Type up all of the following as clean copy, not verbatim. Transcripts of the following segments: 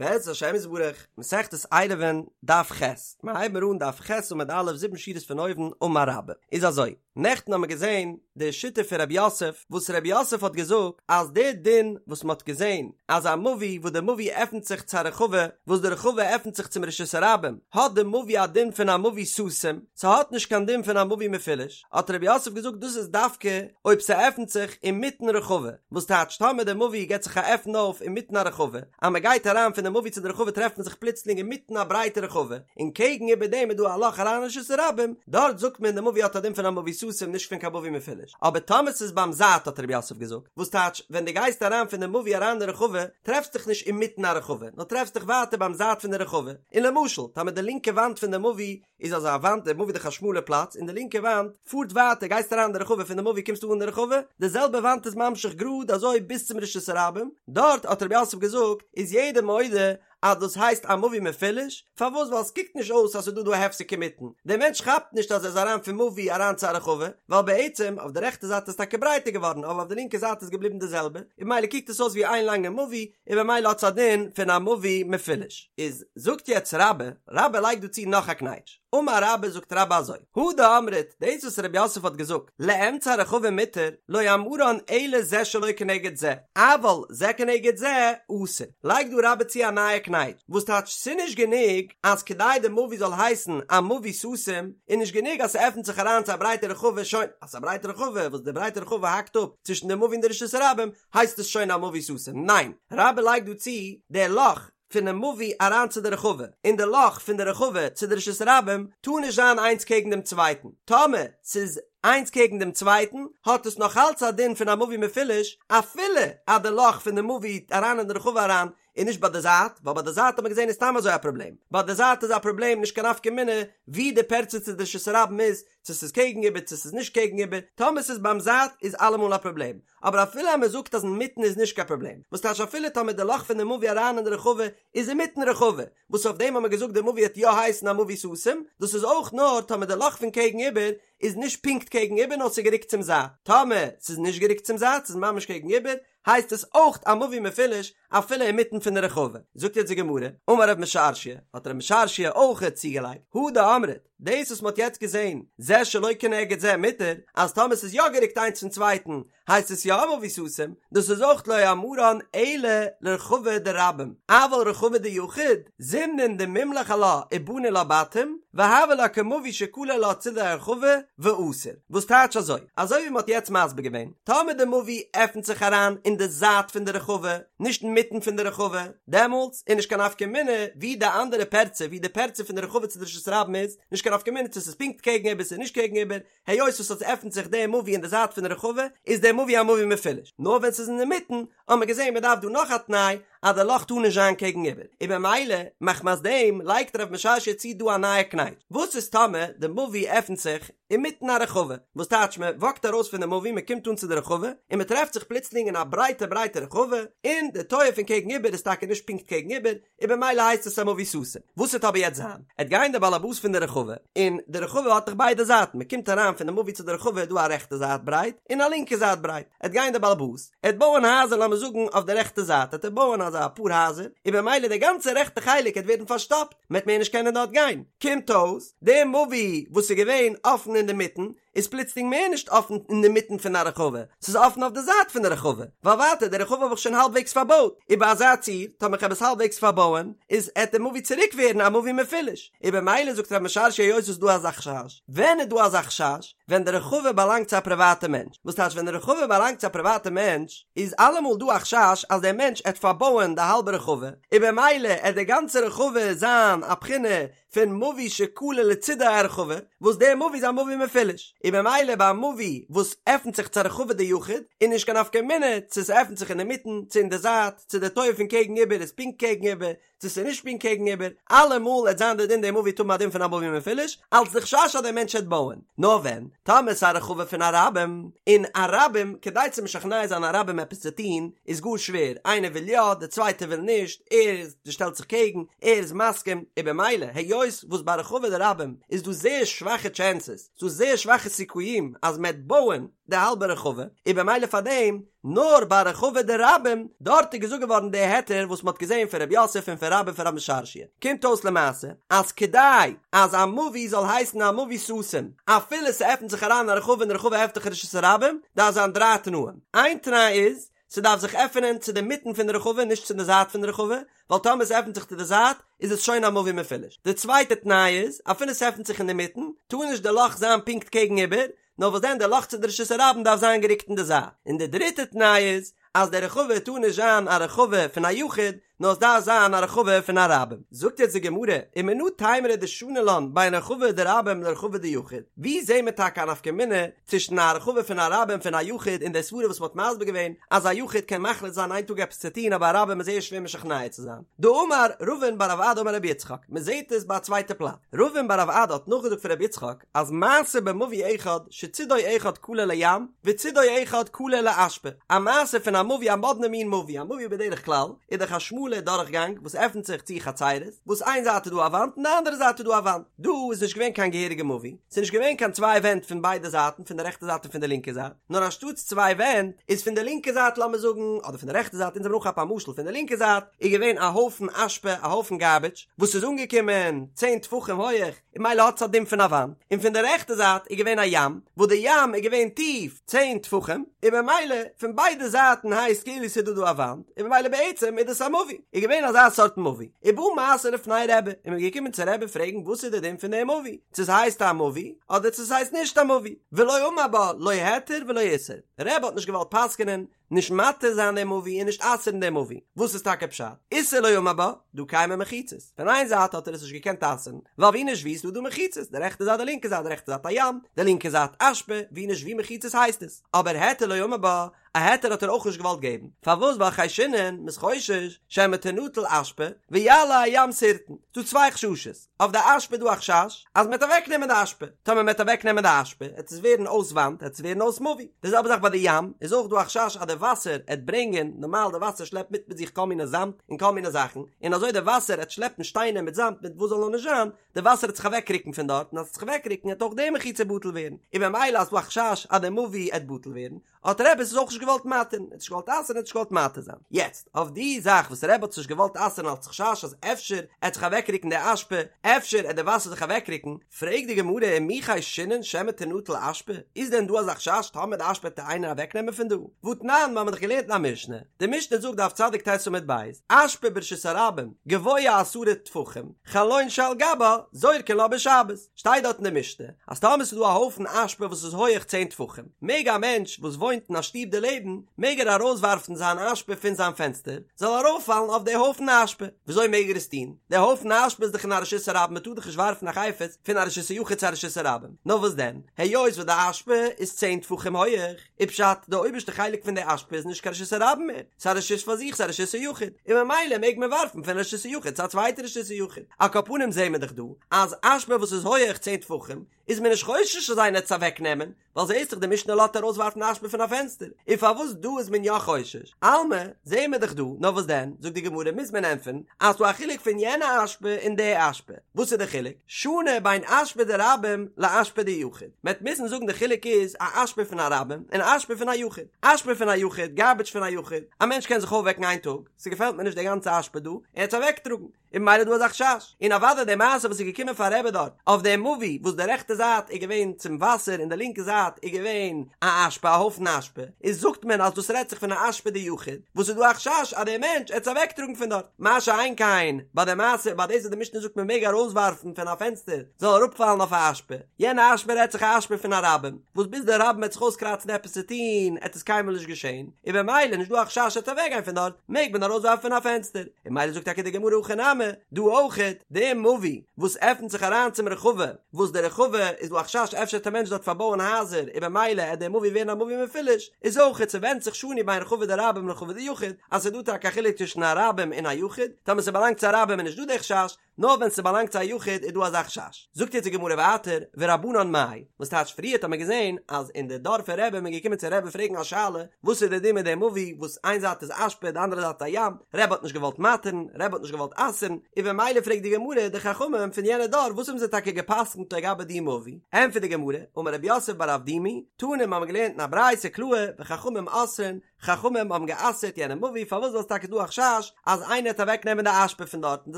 בעזרת השם יתברך, מסכת עירובין, דף ח', מיר הייבן אן דף ח' עמוד א', זיבן שורות פון אויבן, אמר רבה. איז אזוי, נעכטן האמיר געזען די שיטה פון רב יוסף, וואס רב יוסף האט געזאגט אז די דין וואס מען האט געזען אז א מבוי וואס די מבוי עפנט זיך צו א רחבה, וואס די רחבה עפנט זיך צום רשות הרבים, האט די מבוי א דין פון א מבוי סתום, ס'האט נישט קיין דין פון א מבוי מפולש, האט רב יוסף געזאגט דאס איז דווקא אויב ס'עפנט זיך אינמיטן רחבה, וואס טייטש טאמער די מבוי געט זיך א עפן אויף אינמיטן א רחבה, אז מען גייט אריין פון די מבוי צו די רחבה טרעפט מען זיך פלוצלינג אינמיטן א ברייטע רחבה, און קעגן איבער דעם איז דא א לאך אריין אין רשות הרבים, דארט זאגט מען די מבוי האט א דין פון א מבוי סתום נישט פון קיין מבוי מפולש, אבער טאמער ס'איז ביים זייט האט רב יוסף געזאגט, וואס טייטש ווען דו גייסט אריין פון די מבוי אריין אין די רחבה טרעפסט דיך נישט אינמיטן א רחבה נאר טרעפסט דיך ווייטער ביים זייט פון די רחבה, און למשל טאמער די לינקע וואנט פון די מבוי איז אזא וואנט, די מבוי איז דאך א שמאלע פלאץ, און די לינקע וואנט פארט ווייטער, גייסט אריין אין די רחבה פון די מבוי קומסטו אן אין די רחבה, די זעלבע וואנט איז ממשיך גראד אזוי ביז צום רשות הרבים, דארט האט רב יוסף געזאגט איז יעדער מודה אז דאס הייסט א מבוי מפולש, פארוואס ווייל עס קוקט נישט אויס אז ס'איז דא דא א הפסק אינמיטן, דער מענטש כאפט נישט אז ער איז אריין פון מבוי אריין צו א רחבה, ווייל בעצם אויף די רעכטע זייט איז טאקע ברייטער געווארן אבער אויף די לינקע זייט איז געבליבן די זעלבע, און ממילא קוקט עס אויס ווי איין לאנגע מבוי, און במילא האט עס א דין פון א מבוי מפולש. איז זאגט יעצט רבה, רבה לייגט דא צו נאך א קנייטש, אמר רבה זאגט רבה אזוי, הא דאמרת, דאס וואס רב יוסף האט געזאגט, לאמצע הרחבה מותר, לא אמרן אלא זה שלא כנגד זה, אבל זה כנגד זה אסור. לייגט דא רבה צו א נייע קנייטש, וואס טייטש ס'נישט גענוג אז כדי די מבוי זאל הייסן א מבוי סתום, איז נישט גענוג אז ס'עפנט זיך אריין צו א ברייטע רחבה, שוין, אז ס'איז א ברייטע רחבה וואס די ברייטע רחבה האקט אפ צווישן די מבוי און די רשות הרבים, הייסט עס שוין א מבוי סתום? ניין! רבה לייגט דא צו די לאך פונעם מבוי אריין צו די רחבה, און די לאך פון די רחבה צו די רשות הרבים טאר נישט זיין איינס קעגן דעם צווייטן, טאמער ס'איז איינס קעגן דעם צווייטן האט עס נאך אלץ א דין פון א מבוי מפולש, אפילו אז די לאך פון די מבוי אריין אין די רחבה אריין איז נישט ביי די זייט, ווייל ביי די זייט האט מען געזען איז סתם אזוי א פראבלעם, ביי די זייט איז א פראבלעם נישט קיין נפקא מינה ווי די פרצה צו די רשות הרבים איז, צו ס'איז קעגן איבער צו ס'איז נישט קעגן איבער, טאמער ס'איז ביים זייט איז אלעמאל א פראבלעם, אבער אפילו אז מ'זאגט אז אינמיטן איז נישט קיין פראבלעם, וואס טייטש אפילו טאמער די לאך פון די מבוי אריין אין די רחבה איז אינמיטן רחבה, וואס אויף דעם האט מען געזאגט די מבוי וועט יא הייסן א מבוי סתום, דאס איז אויך נאר טאמער די לאך פון קעגן איבער איז נישט פונקט קעגן איבער נאר ס'איז גערוקט צום זייט, טאמער ס'איז נישט גערוקט צום זייט ס'איז ממש קעגן איבער, הייסט עס אויך א מבוי מפולש אפילו אינמיטן פון די רחבה. זאגט יעצט די גמרא, אמר רב משרשיא, האט רב משרשיא אויך צוגעלייגט, הא דאמרת, דאס וואס מ'האט יעצט געזען, זה שלא כנגד זה מותר, אז טאמער ס'איז יא גערוקט איינס פון צווייטן, הייסט עס יא א מבוי סתום, דאס איז אויך לא אמרן אלא לרחבה דרבים, אבל רחבה דיחיד, זימנין דמימלך עלה ובני לה בתים, והוה לה כמבוי שכלה לה צידי הרחבה, ואסור. וואס טייטש אזוי? אזוי ווי מ'האט יעצט מסביר געווען, טאמער די מבוי עפנט זיך אריין אין די זייט פון די רחבה, נישט אינמיטן פון די רחבה, דעמאלטס איז נישט קיין נפקא מינה ווי די אנדערע פרצה, ווי די פרצה פון די רחבה צו די רשות הרבים איז, נישט קיין נפקא מינה צו ס'איז פונקט קעגן איבער ס'איז נישט קעגן איבער, היות וואס עס עפנט זיך די מבוי אין די זייט פון די רחבה, איז די מבוי א מבוי מפולש. נאר ווען ס'איז אינמיטן, האט מען געזען מ'דארף דא נאך א תנאי, אז די לאך טאר נישט זיין קעגן איבער, און במילא מחמת דעם לייגט רב משרשיא צו דא א נייע קנייטש, וואס איז טאמער די מבוי עפנט זיך אינמיטן א רחבה, וואס טייטש מען וואקט ארויס פון די מבוי מען קומט אן צו די רחבה, און מען טרעפט זיך פלוצלינג אין א ברייטע ברייטע רחבה, און די טויער פון קעגן איבער איז טאקע נישט פונקט קעגן איבער, און במילא הייסט עס א מבוי סתום. וואס וועט אבער יעצט זיין? עט גיין דער באלעבאס פון די רחבה, און די רחבה האט דאך ביידע זייטן, מען קומט אריין פון די מבוי צו די רחבה איז דא א רעכטע זייט ברייט, און א לינקע זייט ברייט, עט גיין דער באלעבאס, עט בויען הייזער לאמיר זאגן אויף די רעכטע זייט עט ער בויען אזא אפאר הייזער, און במילא די גאנצע רעכטע חלק עט ווערן פארשטאפט, מען עט מער נישט קענען דארט גיין, קומט אויס, די מבוי וואס איז געווען אפן אינדערמיטן, איז פלוצלינג מער נישט אפן אינדערמיטן פון א רחבה, ס'איז אפן אויף די זייט פון די רחבה, ווייל ווייטער די רחבה האב איך שוין האלבוועגס פארבויט, און ביי אזא ציור, טאמער כ'האב עס האלבוועגס פארבויען, איז עט די מבוי צוריק ווערן א מבוי מפולש, און במילא זאגט רב משרשיא היות ס'איז דא אזא חשש, ווען איז דא אזא חשש? ווען די רחבה באלאנגט צו א פריוואטע מענטש, וואס טייטש ווען די רחבה באלאנגט צו א פריוואטע מענטש, איז אלעמאל דא א חשש אז דער מענטש עט פארבויען די האלבע רחבה, און במילא עט די גאנצע רחבה זיין א בחינה פון מבוי שכלה לצידי הרחבה, וואס דער מבוי איז א מבוי מפולש, און במילא ביי א מבוי וואס עפנט זיך צו א רחבה דיחיד, איז נישט קיין נפקא מינה צו ס'עפנט זיך אינמיטן צו אין די זייט, צו די טויער פון קעגן איבער איז פונקט קעגן איבער, צו ס'איז נישט פונקט קעגן איבער, אלעמאל עט זיין די דין די מבוי עט האבן א דין פון א מבוי מפולש, אלץ די חשש אז דער מענטש עט בויען. נאר ווען, טאמער ס'איז א רחבה פון א רבים, און א רבים, כדי צו משכנע זיין א רבים עפעס צו טון, איז גאר שווער, איינער וויל יא, דער צווייטער וויל נישט, ער שטעלט זיך קעגן, ער איז מסכים, און במילא, היות היות וואס ביי רחבה דרבים איז דא זייער שוואכע טשענסעס, ס'דא זייער שוואכע סיכויים אז מ'עט בויען די האלבע רחבה, און במילא פאר דעם נאר ביי רחבה דרבים, דארט איז געזאגט געווארן די היתר וואס מ'האט געזען פון רב יוסף און פון רבה און פון רב משרשיא. קומט אויס למעשה אז כדי אז א מבוי זאל הייסן א מבוי סתום אפילו ס'עפנט זיך אריין א רחבה און די רחבה עפנט זיך רשות הרבים, דארף זיין דריי תנאים. איין תנאי איז, ס'דארף זיך עפענען צו די מיטן פון די רחבה נישט צו די זייט פון די רחבה, ווייל טאמער ס'עפנט זיך צו די זייט איז עס שוין א מבוי מפולש. די צווייטע תנאי איז, אפילו ס'עפנט זיך אינדערמיטן, טאר נישט די לאך זיין פונקט קעגן איבער, נאר וואס דען די לאך צו די רשות הרבים דארף זיין גערוקט אין די זייט. און די דריטע תנאי איז, אז די רחבה טאר נישט זיין א רחבה פון א יחיד, נאר עס דארף זיין א רחבה פון א רבים. זאגט יעצט די גמרא, ומנא תימרא דשני לן בין רחבה דרבים לרחבה דיחיד, ווי זעהן מיר טאקע א נפקא מינה צווישן א רחבה פון א רבים פון א יחיד און די סברה וואס מ'האט מסביר געווען אז א יחיד קען מחליט זיין איין טאג עפעס צו טון אבער א רבים איז זייער שווער משכנע צו זיין. דאמר רבין בר רב אדא אמר רבי יצחק, מ'זעהט עס ביי א צווייטע פלאץ. רבין בר רב אדא האט נאכגעזאגט פון רבי יצחק אז מעשה במבוי אחד שצידו אחד כלה לים וצידו אחד כלה לאשפה, א מעשה פון א מבוי א מאדנע מין מבוי, א מבוי בדרך כלל איז דאך א שמאלע דורכגאנג וואס עפנט זיך צו חצרות, וואס איין זייט איז דא א וואנט און די אנדערע זייט איז דא א וואנט, דא איז נישט געווען קיין געהעריגע מבוי, ס'איז נישט געווען קיין צוויי ווענט פון ביידע זייטן, פון די רעכטע זייט און פון די לינקע זייט, נאר אנשטאטס צוויי ווענט, איז פון די לינקע זייט לאמיר זאגן, אדער פון די רעכטע זייט, אונז האבן אנכאפן א משל, פון די לינקע זייט איז געווען א הויפן אשפה, א הויפן גארביטש, וואס איז אנגעקומען צען טפחים הויעך, און ממילא האט עס א דין פון א וואנט, און פון די רעכטע זייט איז געווען א ים, וואס די ים איז געווען טיף צען טפחים, און ממילא פון ביידע זייטן הייסט כאילו ס'איז דא דא א וואנט, און ממילא בעצם איז דאס א מבוי, איז געווען אזא סארט מבוי, ובא מעשה לפני רבי, און מ'איז געקומען צו רבי פרעגן וואס איז די דין פון די מבוי, צו ס'הייסט א מבוי, אדער צו ס'הייסט נישט א מבוי, ולא אמר בה לא היתר ולא איסור, רבי האט נישט געוואלט פסק'נען, נישט מתיר זיין דעם מבוי און נישט אסר'ן דעם מבוי, וואס איז טאקע פשט? איסור לא אמר בה, דהא קיימי מחיצות, פון איין זייט האט ער עס נישט געקענט אסר'ן, ווייל ווי נישט ווי איז דא דא מחיצות, די רעכטע זייט די לינקע זייט, די רעכטע זייט א ים, די לינקע זייט אשפה, ווי נישט ווי מחיצות הייסט עס, אבער היתר לא אמר בה, א היתר האט ער אויך נישט געוואלט געבן, פארוואס ווייל חיישינן, מ'איז חושש, שמא תנטל אשפה, ויעלה הים שרטון, ס'דא צוויי חששות. אויף די אשפה איז דא א חשש אז מ'וועט אוועקנעמען די אשפה, טאמער מ'וועט אוועקנעמען די אשפה עט עס ווערן אויס וואנט, עט עס ווערן אויס מבוי, די זעלבע זאך ביי די ים איז אויך דא א חשש אז די וואסער עט ברענגען, נארמאל די וואסער שלעפט מיט מיט זיך כל מיני זאמד און כל מיני זאכן, און אזוי די וואסער עט שלעפן שטיינער מיט זאמד מיט וואס זאל נאר נישט זיין, די וואסער עט זיך אוועקרוקן פון דארט און אז עס עט זיך אוועקרוקן עט אויך די מחיצה בטל ווערן, און ממילא אז ס'דא א חשש אז די מבוי עט בטל ווערן, האט רבי עס אויך נישט געוואלט מתיר'ן, ער האט נישט געוואלט אסר'ן, ער האט נישט געוואלט מתיר זיין. יעצט, אויף די זאך וואס רבי האט עס נישט געוואלט אסר'ן אלץ חשש אז אפשר עט זיך אוועקרוקן די אשפה, אפשר עט די וואסער זיך אוועקרוקן, פרעגט די גמרא ומי חיישינן שמא תנטל אשפה, איז דען דא אזא חשש טאמער די אשפה עט איינער אוועקנעמען פון דא? והתנן, מיר האבן דאך געלערנט אין א משנה, די משנה זאגט דף צדיק ט' עמוד ב', אשפה ברשות הרבים גבוה עשרה טפחים, חלון שעל גבה זורקין לה בשבת. שטייט דארט אין די משנה אז טאמער ס'איז דא א הויפן אשפה וואס איז הויעך צען טפחים, מעג א מענטש וואס וואוינט אין א שטוב דערלעבן, מעג ער ארויסווארפן זיין אשפה פון זיין פענסטער, זאל ארויפפאלן אויף די הויפן אשפה. וויאזוי מעג ער עס טון? די הויפן אשפה איז דאך אין א רשות הרבים, מ'טאר דאך נישט ווארפן א חפץ פון א רשות היחיד צו א רשות הרבים. נאר וואס דען, היות וואס די אשפה איז צען טפחים הויעך, איז פשט, די אויבערשטע חלק פון די אשפה איז נישט קיין רשות הרבים מער, ס'איז א רשות פאר זיך, ס'איז א רשות היחיד, און ממילא מעג מען ווארפן פון רשות היחיד צו א צווייטע רשות היחיד. על כל פנים זעהן מיר דאך דא, אז אשפה וואס איז הויעך צען טפחים, איז מען נישט חושש אז איינער עט עס אוועק נעמען, ווייל זעהסט דאך די משנה לאזט ארויס ווארפן אשפה פון א פענסטער, און פארוואס דא איז מען יא חושש? אלמא, זעהן מיר דאך דא, נאר וואס דען, זאגט די גמרא מוז מען ענטפערן, אז ס'דא א חילוק פון יענע אשפה און די אשפה. וואס איז די חילוק? שאני בין אשפה דרבים לאשפה דיחיד. מען וועט מוזן זאגן די חילוק איז א אשפה פון א רבים און א אשפה פון א יחיד. אשפה פון א יחיד, גארביטש פון א יחיד, א מענטש קען זיך אויפוועקן איין טאג, ס'געפעלט מיר נישט די גאנצע אשפה דא, און עס אוועקטראגן, און ממילא איז דא אזא חשש. און אוודאי די מעשה וואס איז געקומען פאר רבי דארט, אויף דעם מבוי וואס די רעכטע זייט איז געווען צום וואסער און די לינקע זייט איז געווען א אשפה, א הויפן אשפה, איז זאגט מען אז דאס רעדט זיך פון א אשפה דיחיד, וואס איז דא א חשש אז דער מענטש עט עס אוועקטראגן פון דארט. מה שאין כן ביי די מעשה ביי דאס וואס די משנה זאגט מען מעג ארויסווארפן פון א פענסטער זאל אראפפאלן אויף א אשפה, יענע אשפה רעדט זיך א אשפה פון א רבים, וואס ביז די רבים וועט זיך אויסקראצן עפעס צו טון עט עס קיינמאל נישט געשען, און במילא נישט דא א חשש עט אוועקגיין פון דארט, מעג מען ארויסווארפן פון א פענסטער, און ממילא זאגט טאקע די גמרא הכא נמי, דא אויכעט, די מבוי וואס עפנט זיך אריין צום רחבה, וואס די רחבה איז דא א חשש אפשר עט א מענטש דארט פארבויען הייזער און במילא עט די מבוי ווערן א מבוי מפולש, איז אויכעט ס'ווענדט זיך שאני בין רחבה דרבים לרחבה דיחיד, אז ס'איז דא טאקע א חילוק צווישן א רבים און א יחיד, טאמער ס'באלאנגט צו א רבים איז נישט דא די חשש, נאר ווען ס'באלאנגט צו א יחיד איז דא אזא חשש. זאגט יעצט די גמרא ווייטער, ורבנן מאי, וואס טייטש פריערט האט מען געזען אז אין די דור פון רבי איז מען געקומען צו רבי פרעגן א שאלה, וואס איז די דין מיט די מבוי וואס איין זייט איז אשפה די אנדערע זייט א ים, רבי האט נישט געוואלט מתיר'ן, רבי האט נישט געוואלט אסר'ן, און במילא פרעגט די גמרא די חכמים פון יענע דור וואס האבן זיי טאקע גע'פסק'נט לגבי די מבוי, ענטפערט די גמרא, אמר רב יוסף בר אבדימי, תנא מיר האבן געלערנט אין א ברייתא קלאר, וחכמים אוסרין, חכמים האבן גע'אסר'ט יענע מבוי פארוואס ווייל ס'איז טאקע דא א חשש אז איינער העט אוועק נעמען די אשפה פון דארט און די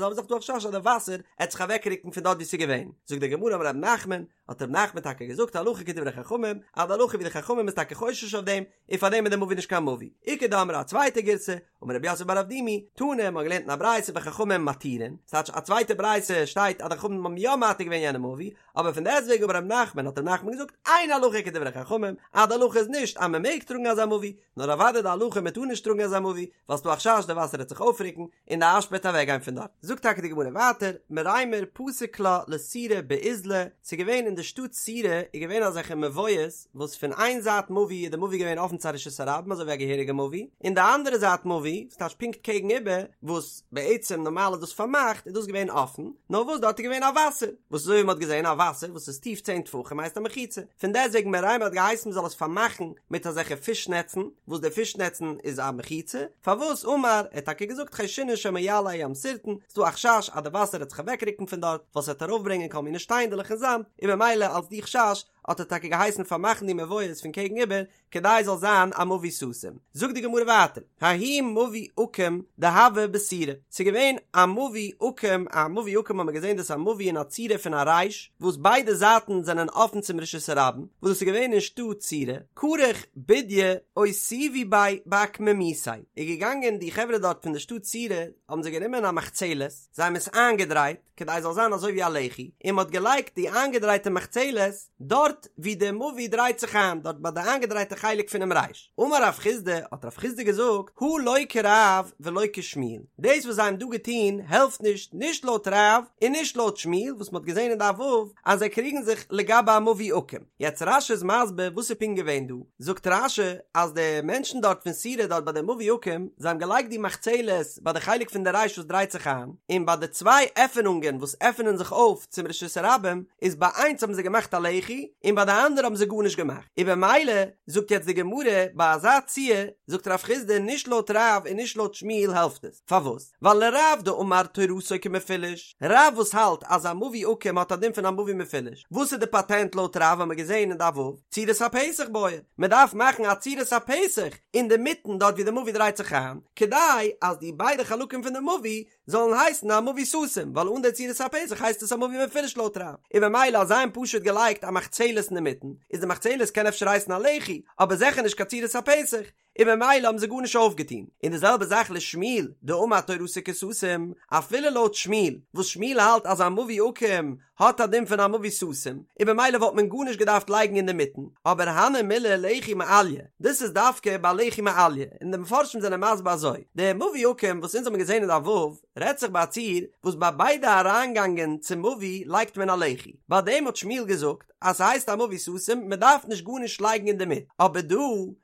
זעלבע זאך דא א חשש אז די וואסער העט זיך אוועק רוקן פון דארט ווי ס'איז געווען, זאגט די גמרא אמר רב נחמן, האט רב נחמן טאקע געזאגט הלכה כדברי חכמים, אז די הלכה ווי די חכמים איז טאקע חושש אויף דעם, און פאר דעם איז די מבוי נישט קיין מבוי. איכא דאמרי א צווייטע גירסא, אמר רב יוסף בר אבדימי, תנא, מ'האט געלערנט אין א ברייתא וחכמים מתירין, ס'טייטש א צווייטע ברייתא שטייט אז די חכמים האבן יא מתיר געווען יענע מבוי, אבער פון דעסטוועגן אמר רב נחמן האט רב נחמן געזאגט אין הלכה כדברי חכמים, אז די הלכה איז נישט אז מ'מעג טראגן אזא מבוי, נאר אוודאי די הלכה מ'טאר נישט טראגן אזא מבוי, ווייל ס'דא א חשש די וואסער העט זיך אויפרוקן און די אשפה העט אוועקגיין פון דארט. זאגט טאקע די גמרא ווייטער, מרימר פסק לה לסורא באיזלא, ס'איז געווען אין די שטאט סורא איז געווען אזעלכע מבואות וואס פון איין זייט מבוי איז די מבוי געווען אפן צו א רשות הרבים אזוי ווי א געהעריגע מבוי, און די אנדערע זייט מבוי, ס'טייטש פונקט קעגן איבער, וואס בעצם נארמאל איז דאס פארמאכט, איז דאס געווען אפן, נאר וואס דארט איז געווען א וואסער, וואס אזוי ווי מ'האט געזען א וואסער וואס איז טיף צען טפחים הייסט א מחיצה, פון דעסטוועגן מרימר האט געהייסן מ'זאל עס פארמאכן מיט אזעלכע פיש נעצן, וואס די פיש נעצן איז א מחיצה, פארוואס אמר, ער האט טאקע געזאגט חיישינן שמא יעלה הים שרטון, ס'דא א חשש אז די וואסער וועט זיך אוועקרוקן פון דארט, ווייל ס'וועט ארויפברענגען כל מיני שטיינדעלעך און זאמד, און במילא אלס די חשש האט ער טאקע געהייסן פארמאכן די מבואות פון קעגן איבער, כדי זאל זיין א מבוי סתום. זאגט די גמרא ווייטער, ההוא מבוי עקום דהוה בסורא, ס'איז געווען א מבוי עקום, א מבוי עקום האט מען געזען דאס איז א מבוי אין א צורה פון א רייש, וואס ביידע זייטן זענען אפן צום רשות הרבים, וואס דאס איז געווען אין שטאט סורא, כרך בודיא אותיבו ביה באקמומיתיה, איז געגאנגען די חברה דארט פון די שטאט סורא, האבן זיי גענומען א מחצלת, זיי האבן עס איינגעדרייט, כדי עס זאל זיין אזוי ווי א לחי, און מען האט געלייגט די איינגעדרייטע מחצלת דארט ווי די מבוי דרייט זיך איין, דארט ביי די איינגעדרייטע חלק פונעם רייש. אמר רב חסדא, האט רב חסדא געזאגט, הא לא כרב ולא כשמואל, דאס וואס זיי האבן דא געטון העלפט נישט, נישט לויט רב און נישט לויט שמואל, וואס מען האט געזען אין דף ו' אז זיי קריגן זיך לגבי א מבוי עקום. יעצט רש"י איז מסביר וואס איז פונקט געווען דא, זאגט רש"י אז די מענטשן דארט פון סורא דארט ביי די מבוי עקום, זיי האבן געלייגט די מחצלת ביי די חלק פון די רייש וואס דרייט זיך איין, און ביי די צוויי עפענונגען וואס עפענען זיך אויף צום רשות הרבים, איז ביי איינס האבן זיי געמאכט א לחי, און ביי די אנדערע האבן זיי גארנישט געמאכט, און במילא זאגט יעצט די גמרא ביי אזא ציור, זאגט רב חסדא נישט לויט רב און נישט לויט שמואל העלפט עס, פארוואס? ווייל לרב דאמר תורתו כמפולש, רב וואס האלט אז א מבוי עקום האט א דין פון א מבוי מפולש, וואס איז די פאטענט לויט רב האמיר געזען אין דף ו', צורת הפתח בעי, מען דארף מאכן א צורת הפתח אינדערמיטן דארט ווי די מבוי דרייט זיך איין, כדי אז די ביידע חלקים פון די מבוי זאלן הייסן א מבוי סתום, ווייל אן די צורת הפתח הייסט עס א מבוי מפולש לויט רב, און במילא אז זיי האבן פשוט געלייגט א מחצלת אינדערמיטן, איז די מחצלת קען אפשר הייסן א לחי, אבער זיכער נישט קיין צורת הפתח, און במילא האבן זיי גארנישט אויפגעטון, און די זעלבע זאך לשמואל דאמר תורתו כסתום, אפילו לויט שמואל, וואס שמואל האלט אז א מבוי עקום האט א דין פון א מבוי סתום, און במילא וואלט מען גארנישט געדארפט לייגן אינדערמיטן, אבער הני מילי לחי מעליא, דאס איז דווקא ביי לחי מעליא, און די מפרשים זענען מסביר אזוי, די מבוי עקום וואס אונז האבן געזען אין דף ו', רעדט זיך ביי א ציור וואס ביי ביידע אריינגאנגען צום מבוי לייגט מען א לחי, ביי דעם האט שמואל געזאגט, אז ס'הייסט א מבוי סתום, מ'דארף נישט גארנישט לייגן אינדערמיט, אבער דא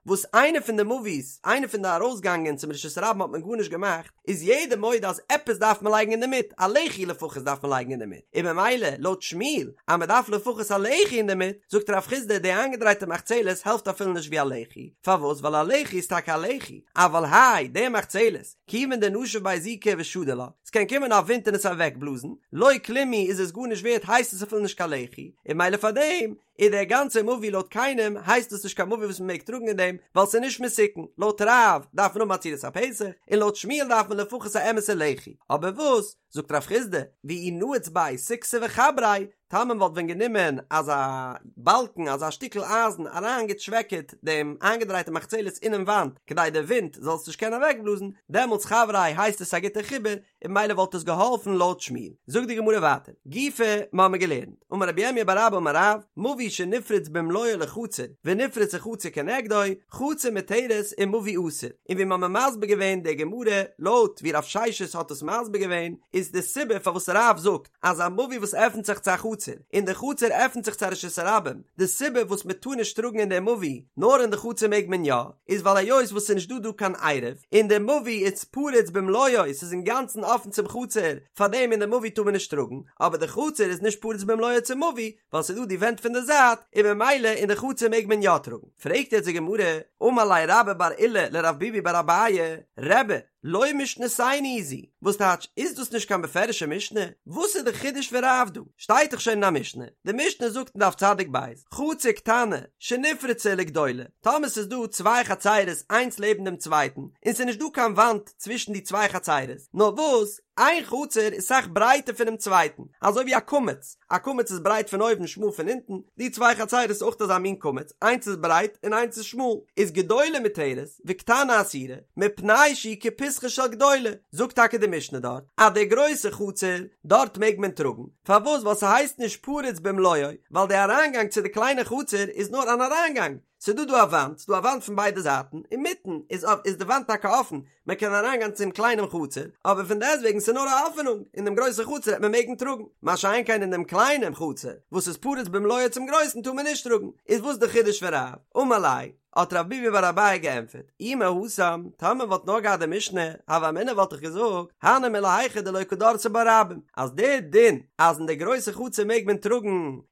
וואס איינע פון די מבוי'ס, איינע פון די ארויסגאנגען צום רשות הרבים האט מען גארנישט געמאכט, איז יעדער מודה אז עפעס דארף מען לייגן אינדערמיט, א לחי לפחות דארף מען לייגן אינדערמיט, און במילא לויט שמואל אז מ'דארף לפחות א לחי אינדערמיט, זאגט רב חסדא די איינגעדרייטע מחצלת העלפט אפילו נישט ווי א לחי, פארוואס ווייל א לחי איז טאקע א לחי, אבל האי די מחצלת, כיוון דנשיב ביה זיקא ושדי לה, ס'קען קומען א ווינט און עס אוועקבלאזן, לא כלום הוא איז עס גארנישט ווערט הייסט עס אפילו נישט קיין לחי, און מילא פארדעם איז דער גאנצער מבוי לויט קיינעם הייסט עס נישט קיין מבוי וואס מ'מעג טראגן אין דעם ווייל ס'איז נישט מתוקן, לויט רב דארף מען האבן א צורת הפתח, און לויט שמואל דארף מען לפחות א אמת'ע לחי, אבער וואס זאגט רב חסדא, ואי נעיץ ביה סיכתא וחבריה, טאמער מען וואלט ווען גענומען אזא באלקן אזא שטיקל אייזן אריינגעטשוועקעט דעם איינגעדרייטע מחצלת אינעם וואנט כדי די ווינט זאל עס נישט קענען אוועקבלאזן, דעמאלטס חבריה הייסט עס א גוטע חיבור, און ממילא וואלט עס געהאלפן לויט שמואל. זאגט די גמרא ווייטער, גופא, מיר האבן געלערנט, אמר רבי ירמיה בר אבא אמר רב, מבוי שנפרץ במלואו לחצר, ונפרצה חצר כנגדו, חצר מותרת ומבוי אסור, און ווי מיר האבן מסביר געווען די גמרא לויט ווי רב ששת האט עס מסביר געווען, איז די סיבה פארוואס רב זאגט אז א מבוי וואס עפנט זיך צו א חצר. חצר, און די חצר עפנט זיך צו א רשות הרבים, די סיבה וואס מען טאר נישט טראגן אין די מבוי, נאר אין די חצר מעג מען יא, איז ווייל היות וואס ס'איז נישט דא דא קיין עירוב, און די מבוי איז פרוץ במלואו, ס'איז אינגאנצן אפן צום חצר, פארדעם אין די מבוי טאר מען נישט טראגן, אבער די חצר איז נישט פרוץ במלואו צום מבוי, ווייל ס'איז דא די ווענט פון די זייט, און ממילא אין די חצר מעג מען יא טראגן. פרעגט יעצט די גמרא, אמר ליה רבה בר עולא לרב ביבי בר אביי, רבי, לא משנתנו היא זו, וואס טייטש, איז דאס נישט קיין בפירוש'ע משנה? וואס איז די חידוש פון רב דא? שטייט דאך שוין אין א משנה, די משנה זאגט אין דף צדיק ב', חצר קטנה שנפרצה לגדולה, טאמער ס'איז דא צוויי חצרות איינס לעבן דעם צווייטן, און ס'איז נישט דא קיין וואנט צווישן די צוויי חצרות, נאר וואס, איין חצר איז סאך ברייטער פונעם צווייטן, אזוי ווי א קמץ, א קמץ איז ברייט פון אויבן שמאל פון אונטן, די צוויי חצרות איז אויך אזא מין קמץ, איינס איז ברייט און איינס איז שמאל, איז גדולה מותרת וקטנה אסורה, מפני שהיא כפתחה של גדולה, זאגט טאקע די משנה דארט אז די גרויסע חצר, דארט מעג מען טראגן, פארוואס ווייל ס'הייסט נישט פרוץ במלואו, ווייל די אריינגאנג צו די קליינע חצר איז נאר אן אריינגאנג, ס'דא דא א וואנט, ס'דא א וואנט פון ביידע זייטן, אינמיטן איז איז די וואנט טאקע אפן, מען קען אריינגיין צום קליינעם חצר, אבער פון דעסטוועגן ס'איז נאר א עפענונג, אין דעם גרויסן חצר העט מען מעגן טראגן, מה שאין כן אין דעם קליינעם חצר וואס איז פרוץ במלואו צום גרויסן טאר מען נישט טראגן, איז וואס די חידוש פון רב? אמר ליה, האט רב ביבי בר אביי געענטפערט, אי מהתם, טאמער וואלט נאר געהאט די משנה, הוה אמינא וואלט איך געזאגט, הני מילי היכא דלא קא דרסי בה רבים, אז דער דין אז אין די גרויסע חצר מעג מען טראגן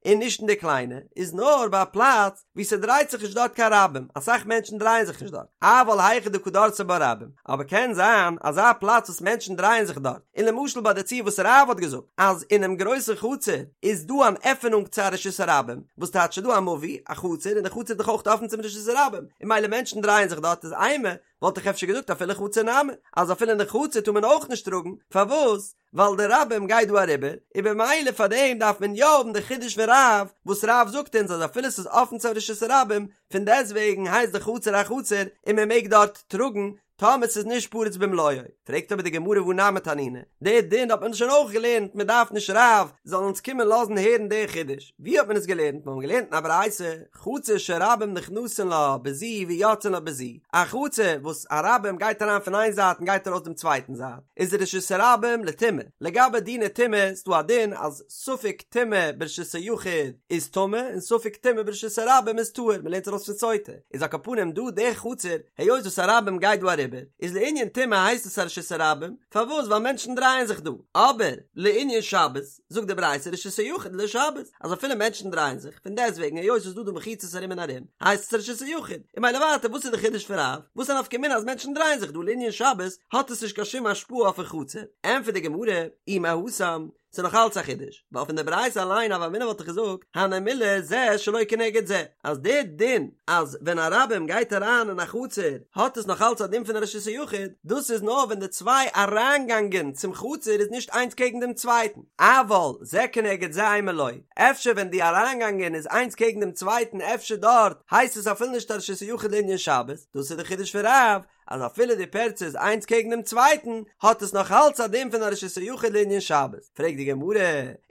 און נישט אין די קליינע, איז נאר ביי א פלאץ וואו ס'דרייט זיך נישט דארט קיין רבים, אסאך מענטשן דרייען זיך נישט דארט, אבל היכא דקא דרסי בה רבים, אבער קען זיין אזא פלאץ וואס מענטשן דרייען זיך דארט, און למשל ביי די ציור וואס רב האט געזאגט אז אינעם גרויסן חצר איז דא אן עפענונג צו א רשות הרבים, וואס טייטש ס'איז דא א מבוי, א חצר, און די חצר איז דאך אויך אפן צום רשות הרבים, און ממילא מענטשן דרייען זיך דארט איז אימא, וואלט איך אפשר געזאגט אפילו חצר נמי, אז אפילו אין די חצר טאר מען אויך נישט טראגן, פארוואס? ווייל די רבים גייט דא אריבער, און במילא פאר דעם דארף מען יא האבן די חידוש פון רב, וואס רב זאגט אונז אז אפילו ס'איז אפן צו רשות הרבים, פון דעסטוועגן הייסט די חצר א חצר און מען מעג דארט טראגן, טאמער ס'איז נישט פרוץ במלואו. פרעגט אבער די גמרא והא נמי תנינא, די דין האט מען שוין אויך געלערנט, מען דארף נישט רב זאל אונז קומען לאזן הערן די חידוש, ווי האט מען עס געלערנט? מיר האבן געלערנט אין א ברייתא, חצר שרבים נכנסין לה בזו ויוצאין לה בזו, א חצר וואס א רבים גייט אריין פון איין זייט און גייט ארויס דעם צווייטן זייט, איז רשות הרבים לטומאה, לגבי דיני טומאה איז דא א דין אז ספק טומאה ברשות היחיד איז טמא און ספק טומאה ברשות הרבים איז טהור, מען לערנט ארויס פון סוטה, איז על כל פנים דא די חצר, היות וואס א רבים גייט דא אריבער, איז לענין טומאה הייסט עס א רשות הרבים, פארוואס ווייל מענטשן דרייען זיך דא, אבער לענין שבת, זאגט די ברייתא רשות היחיד לשבת, אז אפילו מענטשן דרייען זיך, פון דעסטוועגן היות ס'איז דא דא מחיצות ארום און ארום, הייסט עס רשות היחיד, און ממילא ווייטער וואס איז די חידוש פון רב, וואס א נפקא מינה אז מענטשן דרייען זיך דא לענין שבת האט עס נישט קיין שום השפעה אויפן חצר, ענטפערט די גמרא, אי מהתם, ס'איז נאך אלץ א חידוש, ווייל פון די ברייתא אליין הוה אמינא וואלט איך געזאגט, הני מילי זה שלא כנגד זה, אז די דין אז ווען א רבים גייט אריין אין א חצר האט עס נאך אלץ א דין פון א רשות היחיד, דאס איז נאר ווען די צוויי אריינגאנגען צום חצר איז נישט איינס קעגן דעם צווייטן, אבל זה כנגד זה אימא לא, אפשר ווען די אריינגאנגען איז איינס קעגן דעם צווייטן אפשר דארט הייסט עס אפילו נישט א רשות היחיד לענין שבת, דאס איז די חידוש פון רב, אז אפילו די פירצה איז איינס קעגן דעם צווייטן, האט עס נאך אלץ א דין פון א רשות היחיד לענין שבת. פרעגט די גמרא,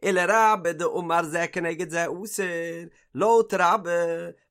ולרבה דאמר זה כנגד זה אסור, לויט רבה,